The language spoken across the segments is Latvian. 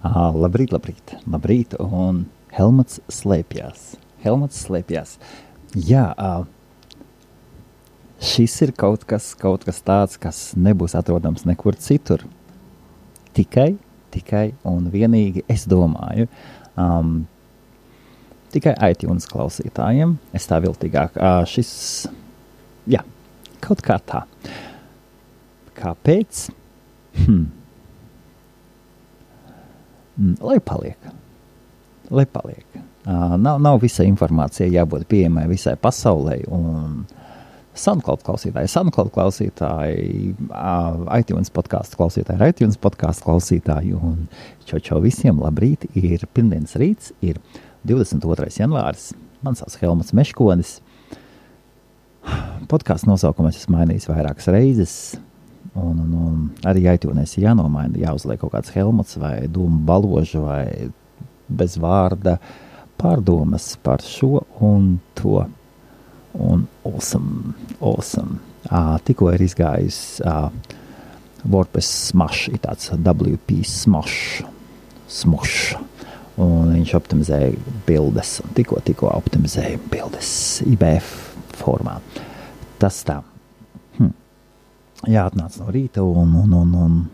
Labrīt, labrīt, labrīt, un Helmuts slēpjās. Jā, šis ir kaut kas tāds, kas nebūs atrodams nekur citur. Tikai un vienīgi, es domāju, tikai iTunes klausītājiem. Es tā viltīgāk. Šis, jā, kaut kā tā. Kāpēc? Lai paliek. Nav visa informācija jābūt pieejamai visai pasaulē, un SoundCloud klausītāji, iTunes podcastu klausītāji, un čau visiem labrīt, ir pirmdienas rīts, ir 22. janvāris, man sauc Helmuts Meškonis. Podcastu nosaukumu es esmu mainījis vairākas reizes, un arī iTunes jānomaina, jāuzliek kaut kāds Helmuts vai dūmu baložu vai bez vārda pārdomas par šo un to. Un awesome. Tikko ir izgājis WordPress Smash, ir tāds WP Smash, un viņš optimizēja bildes, un tikko optimizēja bildes IBF formā. Tas tā. Jāatnāc no rīta un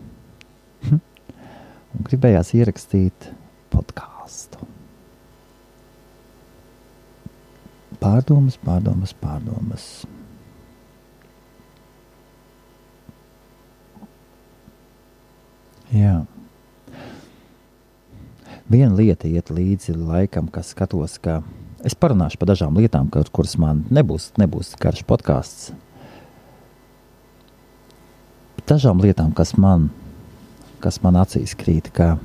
gribējās ierakstīt podcastu. Pārdomas. Jā. Viena lieta iet līdzi laikam, kas skatos, ka es parunāšu par dažām lietām, kuras man nebūs garš podcasts. Dažām lietām, kas man acīs krīt, ka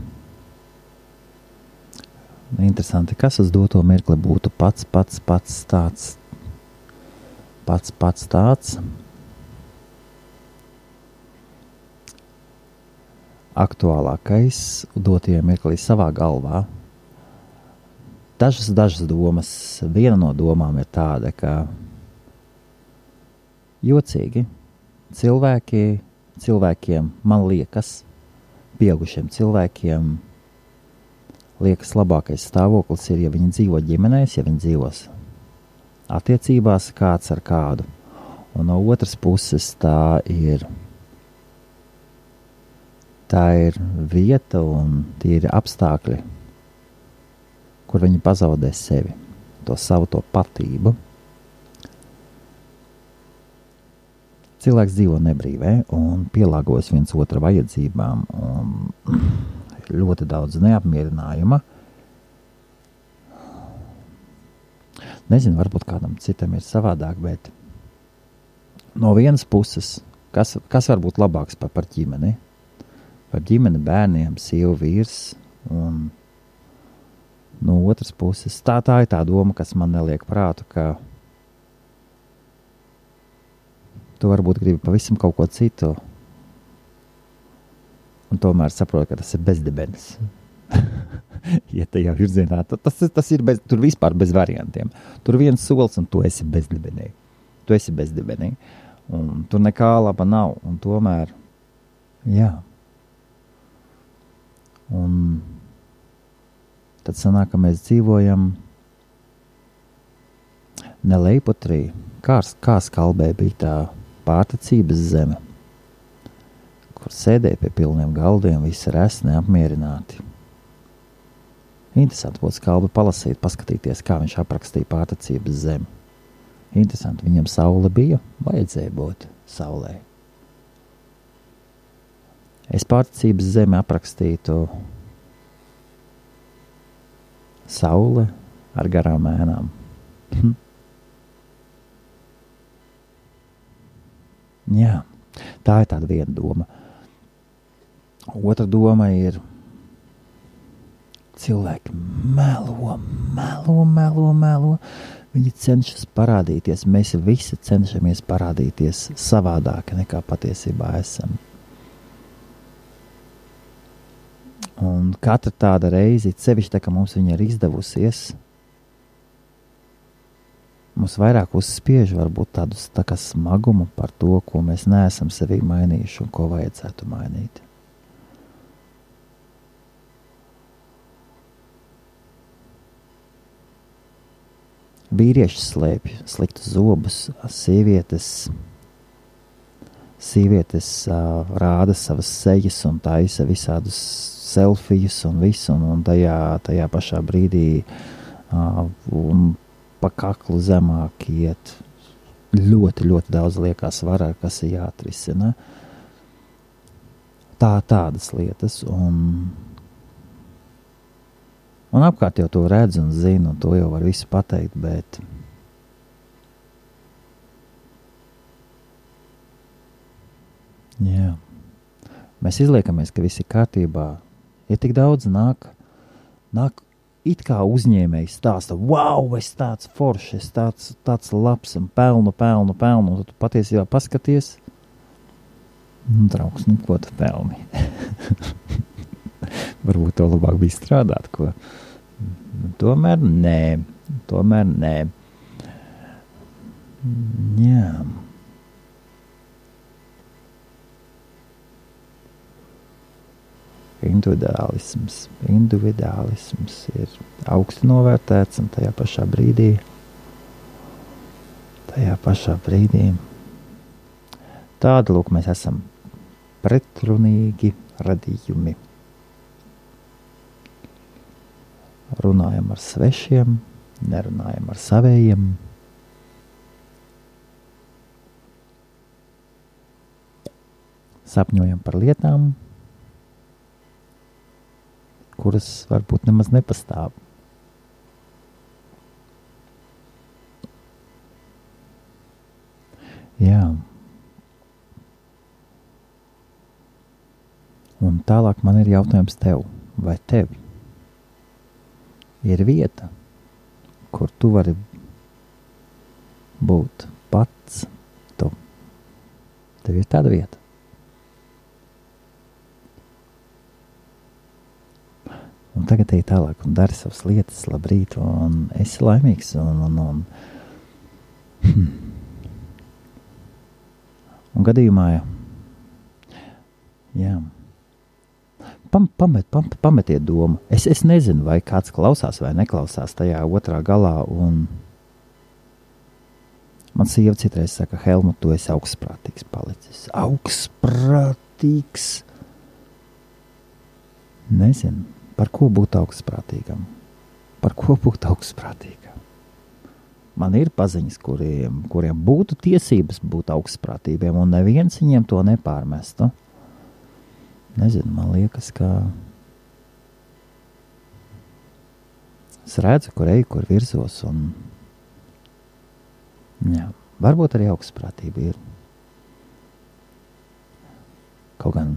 interesanti, kas uz doto mirkli būtu pats tāds aktuālākais dotajā mirklī savā galvā. Dažas domas, viena no domām ir tāda, ka jocīgi cilvēkiem, man liekas, pieaugušiem cilvēkiem liekas labākais stāvoklis ir, ja viņi dzīvo ģimenēs, ja viņi dzīvos attiecībās kāds ar kādu. Un no otras puses tā ir vieta un tie ir apstākļi, kur viņi pazaudē sevi, to savu patību. Cilvēks dzīvo nebrīvē un pielāgojas viens otra vajadzībām, un ļoti daudz neapmierinājuma. Nezinu, varbūt kādam citam ir savādāk, bet no vienas puses, kas var būt labāks par ģimeni? Par ģimeni, bērniem, sievu, vīrs, un no otras puses, tā ir tā doma, kas man neliek prātu, ka tu varbūt gribi pavisam kaut ko citu, un tomēr saproti, ka tas ir bezdibenis. Ja tajā virzienā, tas ir tur vispār bez variantiem. Tur viens solis, un tu esi bezdibenī. Un tur nekā laba nav, un tomēr, jā. Un tad sanāk, ka mēs dzīvojam ne Leipotrī, kā Skalbē bija tā pārticības zeme, kur sēdēja pie pilniem galdiem, visi resni, apmierināti. Interesanti būtu Skalbi palasīt, paskatīties, kā viņš aprakstīja pārticības zemi. Interesanti, viņam saule bija, vajadzēja būt saulē. Es pārticības zemi aprakstītu saule ar garām ēnām. Jā, tā ir tāda viena doma. Otra doma ir cilvēki melo. Viņi cenšas parādīties, mēs visi cenšamies parādīties savādāk nekā patiesībā esam. Un katra tāda reize, sevišķi tā, ka mums viņa ir izdevusies, mums vairāk uzspiež varbūt tādus tā kā smagumu par to, ko mēs neesam sevī mainījuši un ko vajadzētu mainīt. Vīrieši slēpj sliktus zobus, sievietes rāda savas sejas un taisa visādus selfijus un visu, un tajā pašā brīdī un pa kaklu zemāk iet. Ļoti, ļoti daudz liekas varā, kas ir jāatrisina. Tādas lietas, un apkārt jau to redz un zina, un to jau var visu pateikt, bet jā. Mēs izliekamies, ka viss ir kārtībā. Ja tik daudz nāk it kā uzņēmējs stāsta, wow, es tāds foršs, es tāds labs un pelnu, un tu patiesībā paskaties, draugs, ko tu pelni? Varbūt to labāk bija strādāt, ko? Tomēr nē. Jā. Individuālisms ir augsti novērtēts, un tajā pašā brīdī tāda, lūk, mēs esam pretrunīgi radījumi. Runājam ar svešiem, nerunājam ar savējiem. Sapņojam par lietām, kuras varbūt nemaz nepastāv. Jā. Un tālāk man ir jautājums tev, vai tev ir vieta, kur tu vari būt pats tu. Tev ir tāda vieta. Un tagad ej tālāk un dari savas lietas, labrīt, un esi laimīgs, un gadījumā, jā, pametiet domu. Es nezinu, vai kāds klausās vai neklausās tajā otrā galā, un man sieva citreiz saka, Helmut, tu esi augstprātīgs palicis. Augstprātīgs? Nezinu. Par ko būt augstprātīgam? Man ir paziņas, kuriem būtu tiesības būt augstprātīgiem, un neviens viņiem to nepārmestu. Nezinu, man liekas, ka es redzu, kur eju, kur virzos, un jā, varbūt arī augstprātība ir. Kaut gan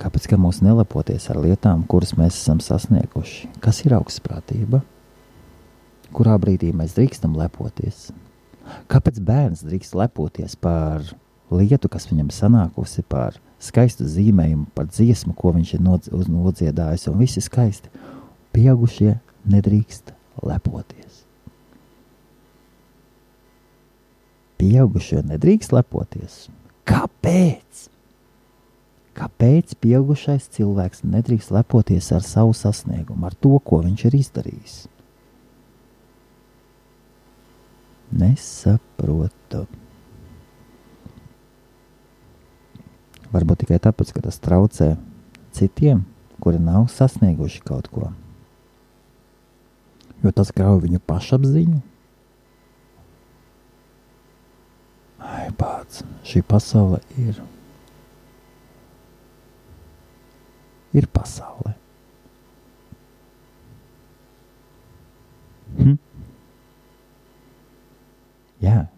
kāpēc gan mūs nelepoties ar lietām, kuras mēs esam sasnieguši? Kas ir augstprātība? Kurā brīdī mēs drīkstam lepoties? Kāpēc bērns drīkst lepoties par lietu, kas viņam sanākusi, par skaistu zīmējumu, par dziesmu, ko viņš ir nodziedājis, un visi skaisti? Pieaugušie nedrīkst lepoties. Pieaugušie nedrīkst lepoties. Kāpēc? Kāpēc pieaugušais cilvēks nedrīkst lepoties ar savu sasniegumu, ar to, ko viņš ir izdarījis? Nesaprotu. Varbūt tikai tāpēc, ka tas traucē citiem, kuri nav sasnieguši kaut ko. Jo tas grauj viņu pašapziņu. Ai, pats, šī pasaule ir pasaule. Jā.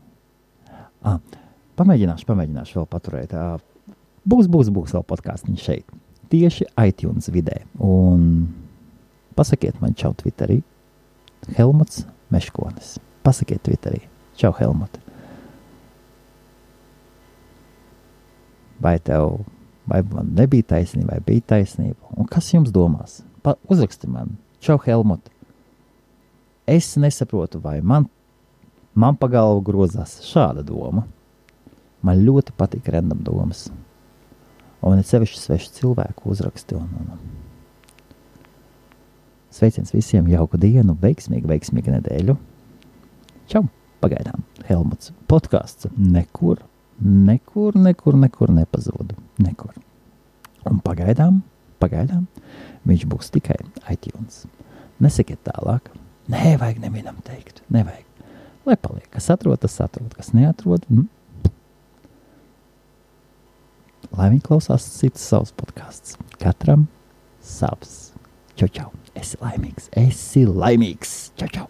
Pamēģināšu vēl paturēt. Būs vēl podkāstiņš šeit. Tieši iTunes vidē. Un pasakiet man čau Twitterī. Helmuts Meškonis. Pasakiet Twitterī. Čau, Helmut. Vai man nebija taisnība, vai bija taisnība? Un kas jums domās? Uzraksti man. Čau, Helmut. Es nesaprotu, vai man pa galvu grozās šāda doma. Man ļoti patīk random domas. Un ir sevišķi svešu cilvēku uzraksti. Sveiciens visiem, jauku dienu, veiksmīgu nedēļu. Čau! Pagaidām Helmuts podcasts nekur nepazūd. Nekur. Un pagaidām viņš būs tikai iTunes. Nesakiet tālāk. Nē, vajag nevienam teikt. Nevajag. Lai paliek. Kas atrod, tas atrod. Kas neatrod, lai viņi klausās cits savus podcasts. Katram savs. Čau, čau. Esi laimīgs. Čau, čau.